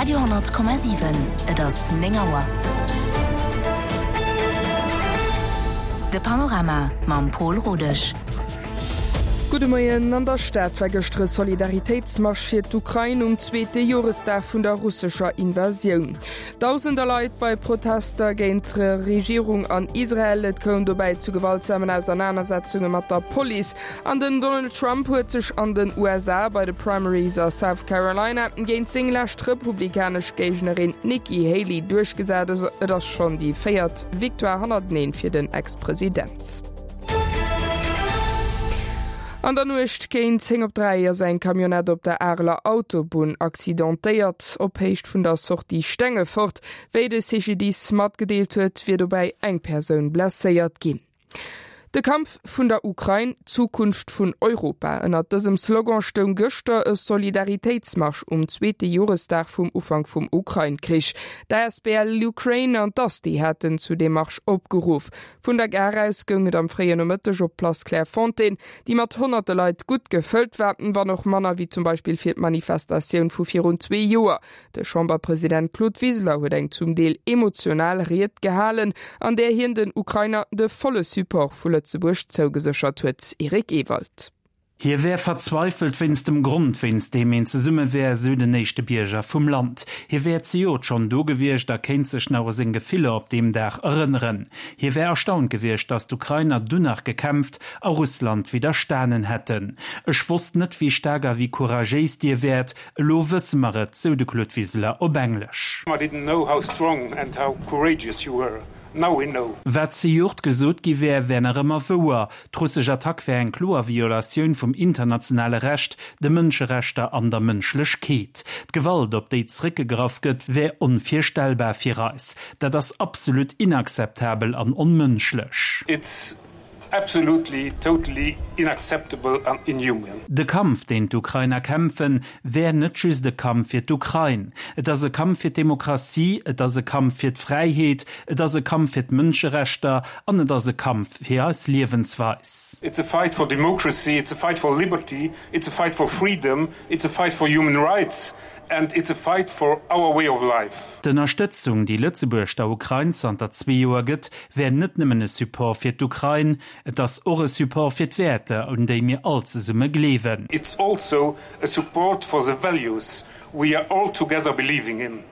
Radio 10,7 Et ass 9 Auer. De Panorama mam Pol Rodesch. Gudde Moien. An der Stad war gëschter e Solidaritéitsmarsch fir d'Ukrain um zweete Joresdag vun der russescher Invasioun. Dausender Leit bei Protester géint d'Regierung an Israel. Et koum dobäi zu gewaltsamen Ausernanersetzunge mat der Police. An den Donald Trump huet sech an den USA bei de Primaries a South Carolina géint seng lescht republikanesch Géignerin Nikki Haley duerchgesat. Et ass schonn déi véiert Victoire hannerteneen fir den Ex-President. An der Nuecht géint 10 op 3 ass eng Camionnette op der Areler Autobunn accidentéiert, op Héicht vun der Sortie Stengefort. Wéi de CGDIS matgedeelt huet, wier dobäi eng Persoun blesséiert ginn. De Kampf vun der Ukrain, d'Zukunft vun Europa, ënnert dësem Slogan stoung gëschter e Solidaritéitsmarsch um zweete Joresdag vum Ufank vum Ukrain-Krich. D'asbl LUkraine an d'ASTI haten zu deem Marsch opgeruff. Vun der Gare aus goung et am fréien Nomëtteg op d'Place Clairefontaine, déi mat honnerte Leit gutt gefëllt war, wann och manner wéi zum Beispill fir d'Manifestatioun vu virun zwee Joer. De Chamberpresident Claude Wiseler huet eng zum Deel emotional Ried gehalen, an där hien den Ukrainer de volle Support vu Lëtzebuerg zougeséchert huet. Eric Ewald. Hie wär verzweifelt wéinst dem Grond, wéinst deem een zesumme wär, sou den éischte Bierger vum Land. Hie wär zejoert schonn do gewiescht a kéint sech nach u seng Gefiller op deem Dag erënneren. Hie wär erstaunt gewiescht, datt d'Ukrainer dunn nach gekämpft a Russland widderstanen hätten. Ech wosst net, wéi staark a wéi couragéis dir wäert. Elo wësse mer et, sou de Claude Wiseler op Englesch. I didn't know how strong and how courageous you were. Now we know. Wat zejoert gesot gi wär, wär nach ëmmer wouer. D'russesch Attack wär eng kloer Violatioun vum internationale Recht, de Mënscherechter an der Mënschlechkeet. D'Gewalt, op déi zeréckgegraff gëtt, wär onvirstellbar fir eis. Dat ass absolut inakzeptabel an onmënschlech. It's absolutely, totally unacceptable and inhuman. De Kampf, deen d'Ukrainer kämpfen, wär net just e Kampf fir d'Ukrain. Et ass e Kampf fir d'Demokratie, et ass e Kampf fir d'Fräiheet, et ass e Kampf fir d'Mënscherechter an et ass e Kampf fir eis Liewensweis. It's a fight for democracy, it's a fight for liberty, it's a fight for freedom, it's a fight for human rights and it's a fight for our way of life. D'Ënnerstëtzung, déi Lëtzebuerg der Ukrain zanter zwee Joer gëtt, wär net nëmmen e Support fir d'Ukrain, et ass och e Support fir d'Wäerter, un déi mir all zesumme gleewen. It's also a support for the values we are all together believing in.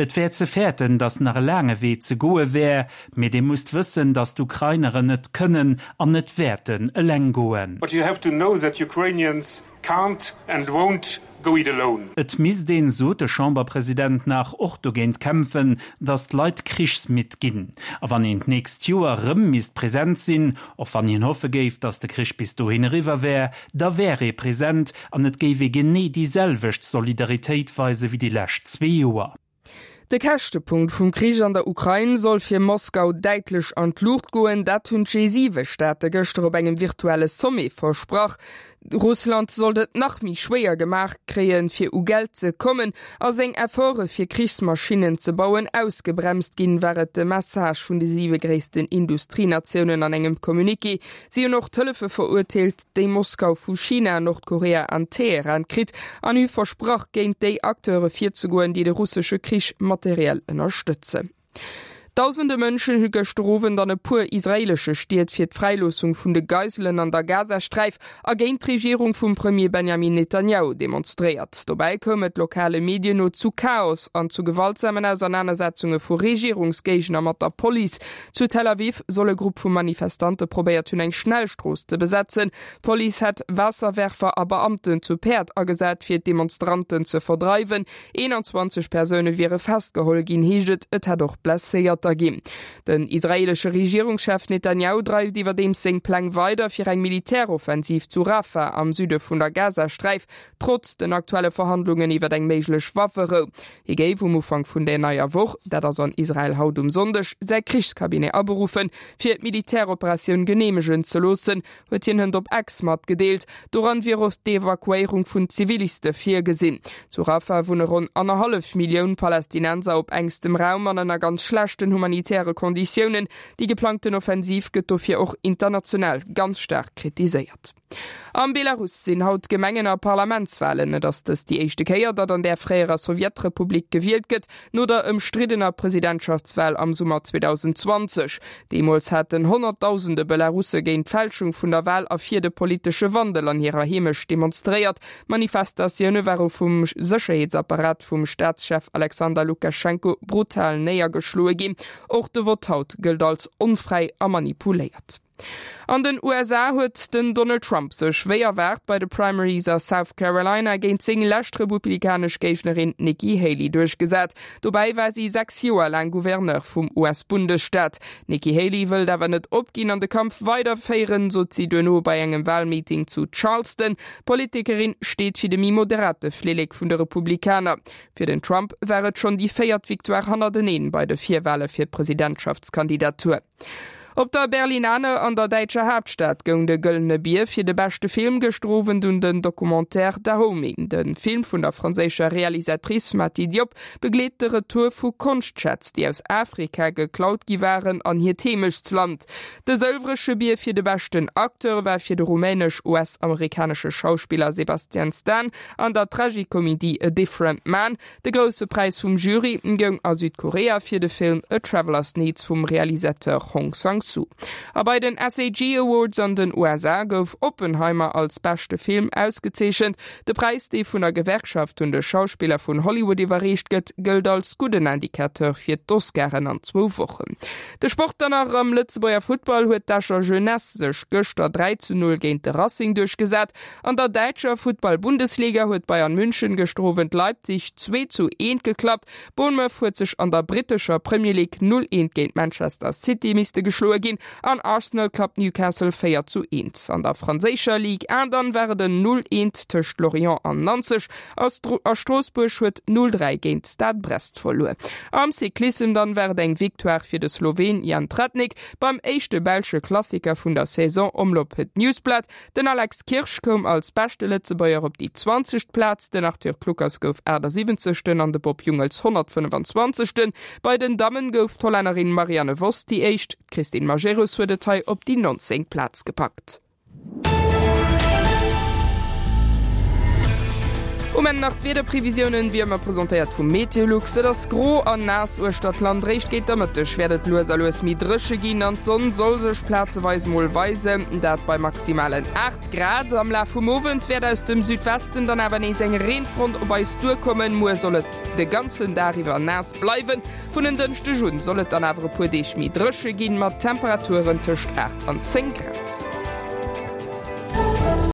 Et wär ze fäerten, datt nach e laange Wee ze goe wär, mee Dir musst wëssen, datt d'Ukraineren net kënnen an net wäerten eleng goen. But you have to know that Ukrainians Can't and won't go it alone. Et misst een, sot de Chamberpresident nach, och dogéint kämpfen, datt d'Leit krichsmidd ginn. A wann een d'nächst Joer rëm misst present sinn, och wann hien hoffe géif, datt de Krich bis dohin eriwwer wär, da wär ee present an et géif ee genee déi selwecht Solidaritéit weise wéi déi lescht zwee Joer. De Käschtepunkt vum Krich an der Ukrain soll fir Moskau däitlech an d'Luucht goen. Dat hunn d'G7-Staate gëschter op engem virtuelle Sommet versprach. Russland sollt et nach méi schwéier gemaach kréien, fir u Geld ze kommen a seng Efforte fir Krichsmaschinnen ze bauen ausgebremst ginn, war et de Message vun de siwe gréissten Industrienatiounen an engem Communiqué. Si hunn och d'Hëllefe verurteelt, déi Moskau vu China, Nordkorea an Teheran kritt an hu versprach, géint déi Acteure virzegoen, déi de russesche Krich materiell ënnerstëtzen. Dausende Mënschen hu gëschter Owend an e puer israeelesche Stied fir d'Fräiloossung vun de Geiselen an der Gazasträif a géint d'Regierung vum Premier Benjamin Netanjahu demonstréiert. Dobäi koum et lokale Medien no zu Chaos an zu gewaltsamen Ausernanersetzunge vu Regierungsgéigner mat der Police. Zu Tel Aviv soll e Grupp vu Manifestante probéiert hunn, eng Schnellstrooss ze besetzen. D'Police hätt Waasserwerfer a Beamten zu Päerd agesat, fir d'Demonstranten ze verdreiwen. 21 Persoune wiere festgeholl ginn, heescht et. Et hätt och Blesséierter ginn. Den israeelesche Regierungschef Netanjahu dreift iwwerdeems seng Pläng weider fir eng Militäroffensiv zu Rafah am Süde vun der Gazasträif, trotz den aktuelle Verhandlungen iwwer eng méiglech Wafferou. Hie géif um Ufank vun der neier Woch, dat ass an Israel haut um Sonndeg, säi Krichscabinet aberuffen, fir d'Militäroperatioun geneemegen ze loossen, huet hien hënt op X matgedeelt. Doran wier och d'Evakuéierung vun Ziviliste virgesinn. Zu Rafah wunne ronn annerhallef Millioun Palästinenser op engstem Raum an ënner ganz schlechten. humanitäre Konditiounen. Déi geplangten Offensiv gëtt dofir och international ganz staark kritiséiert. Am Belarus sinn haut Gemengen a Parlamentswalen. Et ass dëst déi éischte Kéier, datt an där fréierer Sowjetrepublik gewielt gëtt, no der ëmstriddener Presidentschaftswal am Summer 2020. Deemools haten Honnertdausende Belarusse géint d'Fälschung vun der Wal a fir de politesche Wandel an hirer Heemecht demonstréiert. D'Manifestatioune ware vum Sécherheetsapparat vum Staatschef Alexander Lukaschenko brutal néiergeschloe ginn. Och de Vott haut gëllt als onfräi a manipuléiert. An den USA huet den Donald Trump sech wéi erwaart bei de Primaries a South Carolina géint seng lescht republikanesch Géignerin Nikki Haley duerchgesat. Dobäi war si 6 Joer laang Gouverneur vum US-Bundesstaat. D'Nikki Haley wëllt awer net opginn an de Kampf weiderféieren, sot si duerno bei engem Walmeeting zu Charleston. D'Politikerin steet fir de méi moderate Flillek vun de Republikaner. Fir den Trump war et schonn déi véiert Victoire hannerteneen bei de Virwale fir d'Presidentschaftskandidatur. Op der Berlinale an der däitscher Haaptstad goung de Gëllene Bier fir de beschte Film gëschter Owend un den Documentaire Dahomey. De Film vun der franséischer Realisatrice Mati Diop begleet de Retour vu Konschtschätz, déi aus Afrika geklaut gi waren, an hiert Heemechtsland. De Sëlwresche Bier fir de beschten Acteur war fir de rumänesch-US-amerikanesche Schauspiller Sebastian Stan an der Tragikomedie A Different Man. De grousse Präis vum Jury goung a Südkorea fir de Film A Traveler's Needs vum Realisateur Hong Sang-soo. A bei den SAG Awards an den USA gouf Oppenheimer als beschte Film ausgezeechent. De Präis, dee vun der Gewerkschaft un de Schauspiller vun Hollywood iwwerreecht gëtt, gëllt als gudden Indicateur fir d'Oscaren an zwou Wochen. De Sport dann nach, Am Lëtzebuerger Futtball huet d'Escher Jeunesse sech gëschter 3 zu 0 géint de Racing duerchgesat. An der däitscher Futtball-Bundesliga huet Bayern München gëschter Owend Leipzig 2 zu 1 geklappt. Bournemouth huet sech an der brittescher Premier League 0, 1 géint Manchester City misste geschloe ginn an Arsenal klappt Newcastle 4 zu 1. An der franséischer Ligue 1 dann war et en 0, 1 tëscht Lorient an Nanzeg a Stroossbuerg huet 0, 3 géint Stade Brest verluer. Am Cyclissem dann war et eng Victoire fir de Sloween Jan Tratnik beim éischte belsche Klassiker vun der Saison Omloop Het Nieuwsblad. Den Alex Kirsch koum als beschte Lëtzebuerger op déi 20. Plaz, den Arthur Kluckers gouf 78. An de Bob Jungels 125. Bei den Dammen gouf d'Hollännerin Marianne Vos déi éischt, d'Christine Majerus huet et hei op déi 19. Plaz gepackt. Um Enn nach d'Wiederprevisiounen, wéi ëmmer presentéiert vu Meteolux. Et ass gro an naass uechter d'Land. Réischt géint der Mëtteg wäert et lues a lues méi dréche ginn an d'Sonn soll sech plazeweis mol weisen, dat bei maximalen 8 Grad. Am Laf vum Owend wäert aus dem Südwesten dann awer nees eng Reenfront op eis duerkommen. Muer soll et de ganzen Dag iwwer naass bleiwen. Vun en Dënschdeg un soll et dann awer e puer Deeg méi dréche ginn, mat Temperaturen tëscht 8 an 10 Grad.